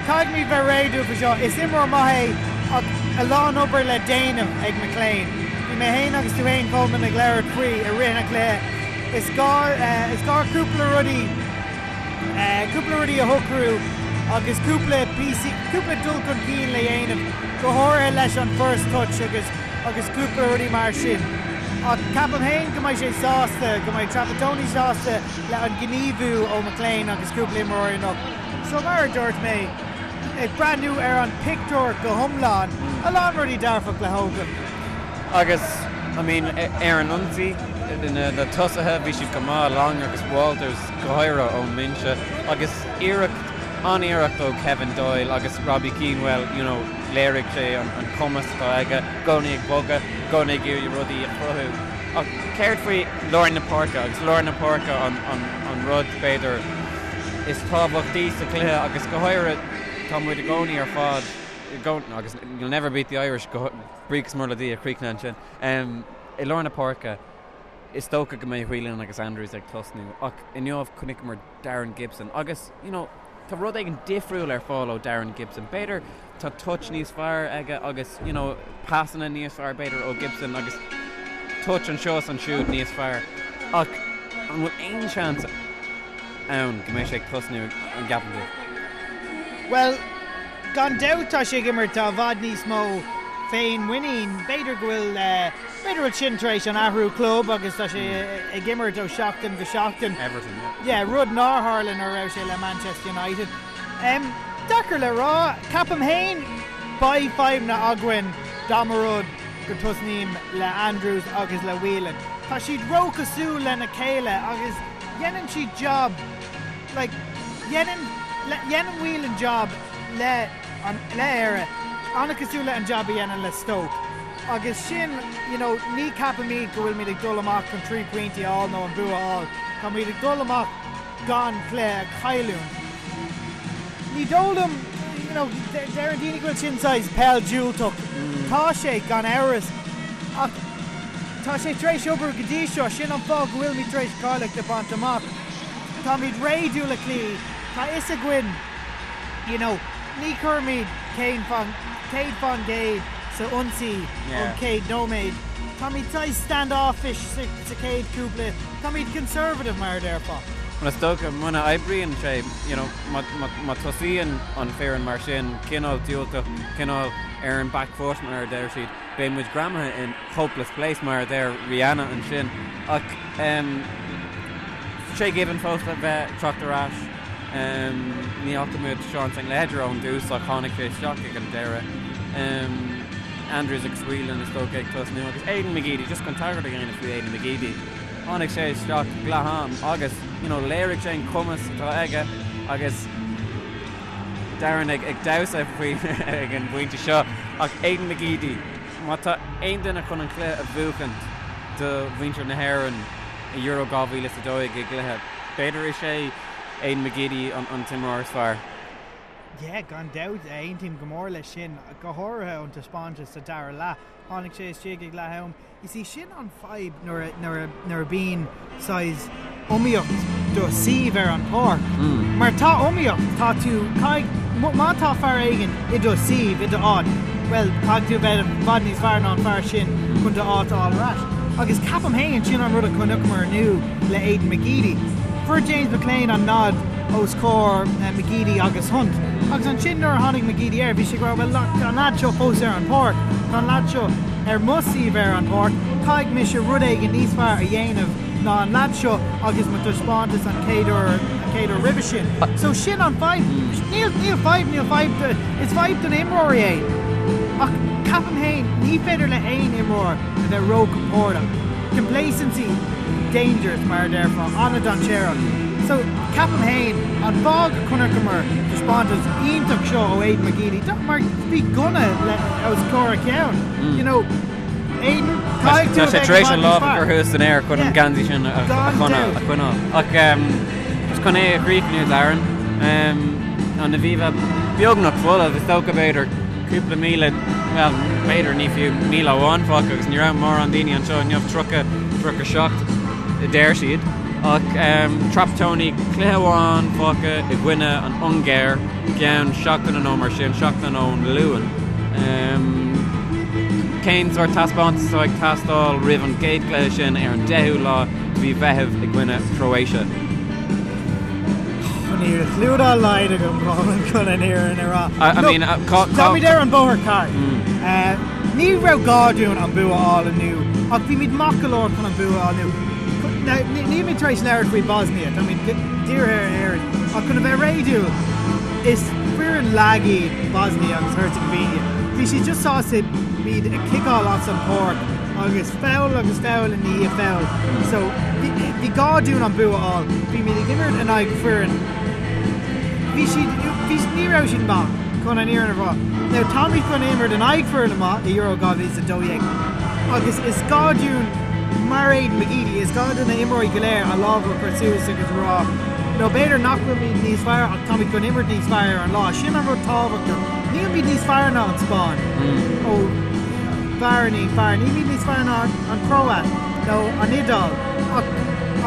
Caithfimid bheith réadúil faoi seo. Is imreoir maith é ach a lán obair le déanamh ag McClean. Bhí mé féin agus tú féin Colman ag labhairt faoi i rith an chluiche. Is gá is gá cúpla rudaí cúpla rudaí a shocrú agus cúpla píosaí cúpla dul chun cinn le dhéanamh go háirithe leis an first touch agus agus cúpla rudaí mar sin. Ach ceapaim féin go mbeidh sé sásta go mbeidh Trapattoni sásta le an gníomhú ó McClean agus cúpla imreoir anocht. So mar a dúirt mé, ag breathnú ar an pictiúr go hiomlán, a lán rudaí dearfach le thógáil. Agus, I mean, ar an ionsaí, na tosaithe, bhí siad go maith, Long agus Walters go háirithe ón mbinse, agus iarracht, an-iarracht ó Kevin Doyle agus Robbie Keane, well, you know, léirigh sé an cumas atá aige, i gcónaí ag bogadh, i gcónaí ag iarraidh rudaí a chruthú. Ach céard faoi lár na páirce, agus lár na páirce an rud, b'fhéidir, is tábhachtaí sa chluiche agus go háirithe tá muid i gcónaí ar fad i gcónaí agus you'll never beat the Irish go buíochas mór le Dia chríochnaithe ansin i lár na páirce. Is dócha go mbeidh Whelan agus Andrews ag tosnú ach inniu chonaiceamar Darren Gibson agus, you know, tá rud éigin difriúil ar fáil ó Darren Gibson. B'fhéidir tá touch níos fearr aige agus, you know, pasanna níos fearr b'fhéidir ó Gibson agus touch anseo is ansiúd níos fearr. Ach an bhfuil aon seans ann go mbeidh sé ag tosnú, an gceapann tú? Bhuel, gan dabht tá sé ag imirt i bhfad níos mó féinmhuinín. B'fhéidir go bhfuil. B'fhéidir go bhfuil sin tar éis an athrú club agus tá sé ag imirt ó sheachtain go seachtain. Everton, yeah. Yeah, rud nár tharla nuair a raibh sé le Manchester United. Um, deacair le rá. Ceapaim féin beidh fadhbanna againn dá mba rud go tosnaím le Andrews agus le Whelan. Tá siad róchosúil lena chéile agus dhéanann siad job like dhéanann dhéanann Whelan job le an le Éire an-chosúil le an job a dhéanann le Stoke. Agus sin, you know, ní ceapaimid go bhfuilimid ag dul amach chun trí pointí a fháil nó an bua a fháil. Táimid ag dul amach gan cluiche a chailliúint. Ní dóigh liom, you know, deireann daoine go bhfuil sin saghas peil diúltach. Tá sé, gan amhras, ach tá sé tar éis obair go dtí seo. Sin an fáth go bhfuilimid tar éis cáilíocht a bhaint amach. Táimid réadúil le cloí. Tá fhios againn, you know, ní chuirimid 100% sa ionsaí ón chéad nóiméad. Táimid saghas stand-offish sa chéad cúpla, táimid conservative mar a déarfá. Bhuel is dócha muna oibríonn sé, you know, má tosaíonn an foireann mar sin, cineál diúltach, cineál ar an back foot mar a deir siad, beidh muid greamaithe in hopeless place mar a deir Rihanna ansin. Ach Shay Given fós le bheith teacht ar ais. Ní fhaca muid Sean St Ledger ón dtús ach tháinig sé isteach ag an deireadh. Andrews agus Whelan is dócha ag tosnú agus Aidan McGeady, just chun tagairt a dhéanamh faoi Aidan McGeady, tháinig sé isteach ag leath am agus you know léirigh sé an cumas atá aige agus Darren ag damhsa faoi ag an bpointe seo ach Aidan McGeady, má tá aon duine chun an cluiche a bhuachaint do mhuintir na hÉireann i Euro 2012 i gcluiche, b'fhéidir is é Aidan McGeady an t-imreoir is fearr. Yeah, gan dabht, aontaím go mór leis sin, go háirithe ón taispeántas sa dara leath. Tháinig sé istigh ag leath am. Is í sin an fadhb nuair a, nuair a, nuair a bíonn saghas iomaíocht do suíomh ar an pháirc. Mar tá iomaíocht, tá tú, caithfidh, má tá fear éigin i do suíomh, i do áit, bhuel, caithfidh tú bheith i bhfad níos fearr ná an fear sin chun do áit a fháil ar ais. Agus ceapaim féin, sin an rud a chonaiceamar inniu le Aidan McGeady. Fuair James McClean an nod os comhair McGeady agus Hunt. Agus ansin nuair a tháinig McGeady air, bhí sé ag rá, bhuel, tá an leaid seo fós ar an pháirc, tá an leaid seo ar mo suíomh ar an pháirc, caithfidh mise rud éigin níos fearr a dhéanamh ná an leaid seo agus mo taispeántas an chéad uair, an chéad uair roimhe sin. So sin an fadhb. Níl, níl fadhb, níl fadhb, is fadhb do na imreoirí é. Ach ceapaim féin, ní féidir le haon imreoir a bheith róchompordach. Complacency, dangerous mar a déarfá, an-dainséarach. So, ceapaim féin, an fáth go chonaiceamar taispeántas iontach seo ó Aidan McGeady, mar bhí gunna le, os comhair a cheann, you know, Aidan, caithfidh tú Tá a sé bheith tar i éis bhfad an níos lámh a fearr. chur thuas san aer chun an Yeah. geansaí sin a Gan choinneáil. dabht. a choinneáil. Ach just chun é a chríochnú, Darren, an Aviva beagnach folamh, is dócha b'fhéidir cúpla míle, bhuel, b'fhéidir ní fiú 1,000 amháin fágtha agus ní raibh mórán daoine anseo inniu, 30, 37 a deir siad. Ach Trapattoni, cluiche amháin fágtha i gcoinne an Ungáir i gceann seachtaine nó mar sin, seachtain ón Luan. Cén sórt taispeántas atá ag teastáil roimh an gcéad chluiche sin ar an 10ú lá de mhí Mheithimh i gcoinne Croatia? Níl clue dá laghad agam chun an fhírinne a rá. I mean, cá. Táimid ar an bóthar ceart. Ní raibh gá dúinn an bua a fháil inniu, ach bhímid maith go leor chun an bua a fháil inniu. Nílimid tar éis labhairt faoi Bosnia, táimid dírithe ar Éirinn, ach chun a bheith réadúil, is foireann lag iad Bosnia agus Herzegovina. Bhí siad just sásta muid a chiceáil as an pháirc agus foul agus foul i ndiaidh foul. So bhí gá dúinn an bua a fháil. Bhímid ag imirt in aghaidh foireann. Bhí siad, bhí, ní raibh siad maith, chun an fhírinne a rá. Now táimid chun imirt in aghaidh foireann maith i Euro 2012 agus is gá dúinn, mar Aidan McGeady, is gá do na imreoirí go léir a lámh a chur suas agus a rá, nó b'fhéidir nach bhfuilimid níos fearr ach táimid chun imirt níos fearr ar an lá. Sin an rud tábhachtach. Nílimid níos fearr ná an Spáinn. Ó, b'fhearr, ní fearr. Nílimid níos fearr ná an Chróit. nó an Iodáil ach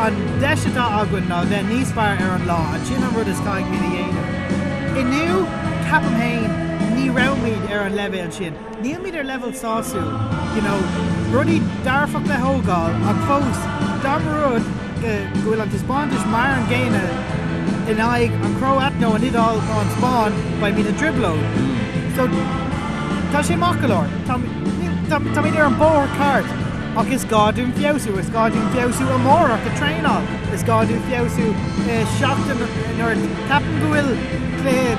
an deis atá againn ná bheith níos fearr ar an lá and sin an rud is caithfimid a dhéanamh. Inniu, ceapaim féin, ní raibhimid ar an leibhéal sin. Nílimid ar leibhéal sásúil, you know, rudaí dearfach le thógáil ach fós, dá mba rud go bhfuil an taispeántas mar an gcéanna in aghaidh an Chróit nó an Iodáil nó an Spáinn, beimid i dtrioblóid. So, tá sé maith go leor. Táimid ar an bóthar ceart ach is gá dúinn feabhsú, is gá dúinn feabhsú amárach ag traenáil, is gá dúinn feabhsú i seachtain nuair ceapaim go bhfuil cluiche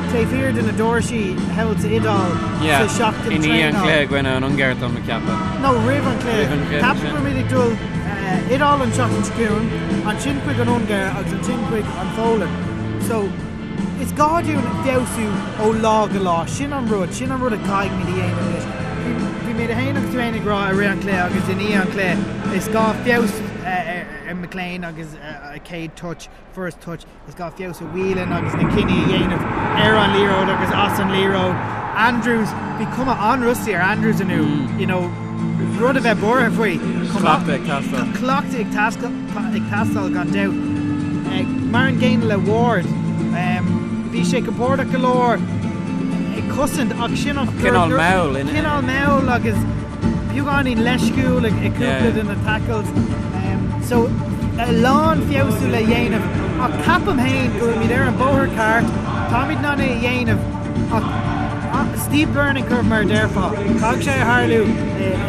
taobh thiar de na doirsí thall sa Iodáil sa seachtain traenáil. I ndiaidh an chluiche i gcoinne an Ungáir tá mé ag ceapadh. No, roimh an chluiche. Roimh an chluiche. Ceapaim go bhfuilimid ag dul Iodáil an tseachtain seo chugainn, ansin chuig an Ungáir agus ansin chuig an Pholainn. So. Is gá dúinn feabhsú ó lá go lá. Sin an rud, sin an rud a caithfimid a dhéanamh anois. Bhí, bhí mé féin agus tú féin ag rá i rith an chluiche agus i ndiaidh an chluiche, is gá feabhas ar McLean agus a chéad touch, first touch, is gá feabhas ar Whelan agus na cinní a dhéanamh ar an liathróid agus as an liathróid. Andrews, bhí cuma an-rusty ar Andrews inniu, you know, rud a bheith buartha faoi. Cleachtadh ag teastáil. Cleachtadh ag teastáil gan dabht. Mar an gcéanna le Ward. Bhí sé compordach go leor ag cosaint ach sin an. Cineál mall. Cineál mall agus beagáinín leisciúil ag cúpla de na tackles. So a lán feabhsú le dhéanamh ach ceapaim féin go bhfuilimid ar an bóthar ceart, táimid in ann é a dhéanamh ach steep learning curve mar a déarfá. Caithfidh sé a tharlú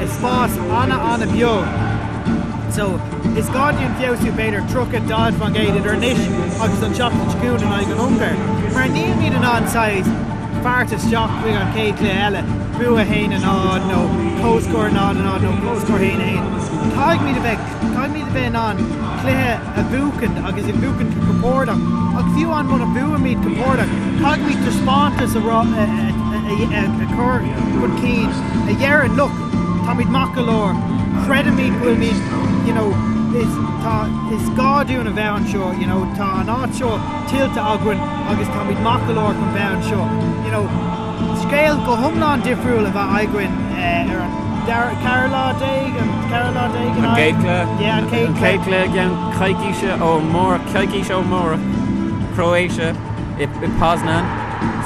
i spás ana-ana-bheag. So, is gá dúinn feabhsú b'fhéidir 30, 40% idir anois agus an tseachtain seo chugainn in aghaidh an Ungáir. Mar nílimid in ann saghas fairt isteach chuig an chéad chluiche eile, bua 1-0 nó comhscór 0-0 nó comhscór 1-1. Caithfimid a bheith, caithfimid a bheith in ann cluiche a bhuachaint agus a bhuachaint go compordach. Ach fiú amháin muna mbuaimid compordach, caithfimid taispeántas a rá, a chur chun cinn a dheireann, look, Táimid maith go leor. Creidimid go bhfuilimid, you know, is, tá, is gá dúinn a bheith anseo, you know, tá an áit seo tuillte againn agus táimid maith go leor chun bheith anseo. You know, scéal go hiomlán difriúil a bheith againn ar an dara, ceathrú lá déag, an ceathrú lá déag in An gcéad cluiche? Yeah, an chéad An chéad cluiche i gceann coicíse ó amárach, coicís ó amárach, Croatia i, i Poznan.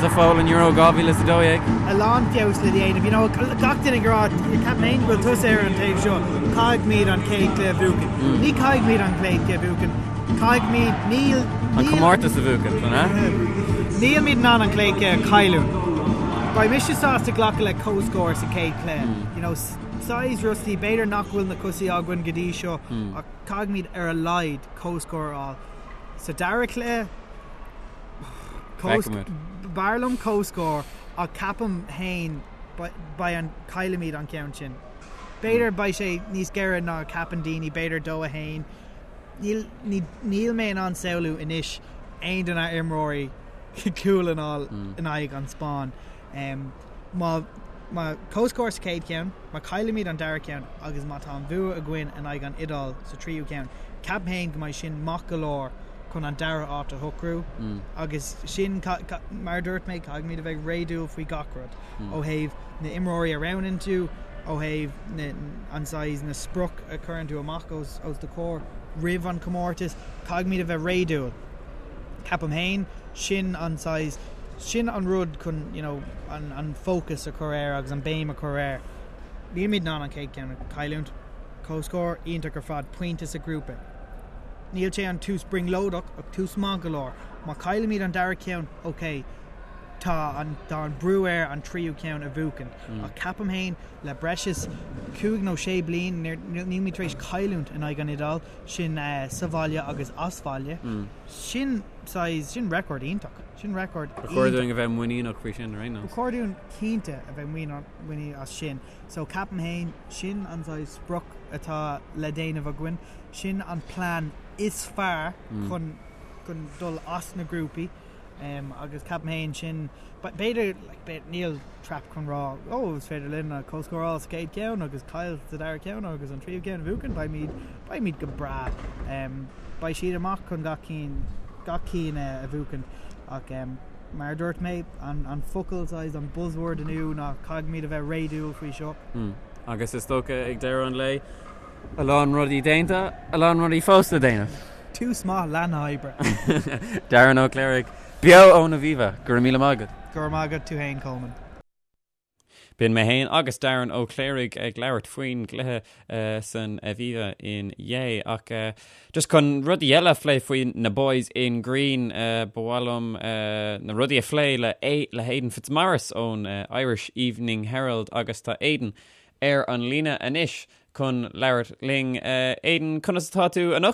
Sa Pholainn Euro 2012. A lán feabhas le déanamh. You know, gach duine ag rá, ceapaim féin go bhfuil tusa ar an taobh seo, caithfimid an chéad chluiche a bhuachan. Ní caithfimid an chéad chluiche a bhuachan. Caithfimid, níl, An comórtas a bhuachan, an ea? Nílimid in ann an chéad chluiche a chailliúint. Beidh mise sásta glacadh le comhscór sa chéad chluiche. You know, saghas rusty, b'fhéidir nach bhfuil na cosa againn go dtí seo, ach caithfimid ar a laghad comhscór a fháil. Sa dara cluiche, B'fhearr liom comhscór ach ceapaim féin beidh an caillfimid an ceann sin. B'fhéidir beidh sé níos géire ná a ceapann daoine, b'fhéidir 2-1. Níl níl mé in ann samhlú anois aon de na imreoirí cúl a fháil in aghaidh an Spáinn. Má má comhscór sa chéad cheann, má caillimid an dara ceann agus má tá an bhua againn in aghaidh an Iodáil sa tríú ceann, ceapaim féin go mbeidh sin maith go leor chun an dara áit a shocrú agus sin, mar a dúirt mé, caithfimid a bheith réadúil faoi gach rud, ó thaobh na imreoirí a roghnaíonn tú, ó thaobh na, an saghas, na sprioc a chuireann tú amach os, os do chomhair roimh an chomórtas, caithfimid a bheith réadúil. Ceapaim féin, sin an saghas, sin an rud chun, you know, an, an focus a chur air agus an béim a chur air. Nílimid in ann an chéad cheann a chailliúint. Comhscór iontach ar fad, pointe sa ghrúpa. Níl sé an tús brionglóideach ach tús maith go leor. Má chaillimid an dara ceann, ok, tá an tá an brú air an tríú ceann a bhuachan. Ach ceapaim féin, le breis is cúig nó sé bliain, nílimid tar éis cailliúint in aghaidh an Iodáil, sin sa bhaile agus as baile. Sin saghas, sin record iontach. Sin record Ba chóir dúinn a bheith muiníneach faoi sin, ar aon nós. Ba chóir dúinn cinnte a bheith muiníneach as sin. So ceapaim féin, sin an saghas sprioc atá le déanamh againn. Sin an plean is fearr chun chun dul as na grúpaí agus ceapaim féin sin b'fhéidir like níl trap chun rá oh is féidir linn an comhscór a fháil sa chéad cheann agus caill sa dara ceann agus an tríú ceann a bhuachan beimid beimid go breá beidh siad amach chun gach cinn gach cinn a bhuachan ach mar a dúirt mé an an focal saghas an buzzword inniu ná caithfimid a bheith réadúil faoi seo. Agus is dócha ag deireadh an lae. A lán rudaí déanta, a lán rudaí fós le déanamh. Tús maith le na hoibre. Darren Ó Cléirigh, beo ón Aviva, go raibh míle maith agat. Go raibh maith agat tú fhéin, Coleman. B'in mé fhéin agus Darren Ó Cléirigh ag labhairt faoin gcluiche san Aviva inné. Ach just chun rudaí eile a phlé faoi na Boys in Green, ba mhaith liom na rudaí a phlé le le Aidan Fitzmaurice ón Irish Evening Herald agus tá Aidan ar an líne anois chun labhairt linn. Aidan, conas atá tú anocht?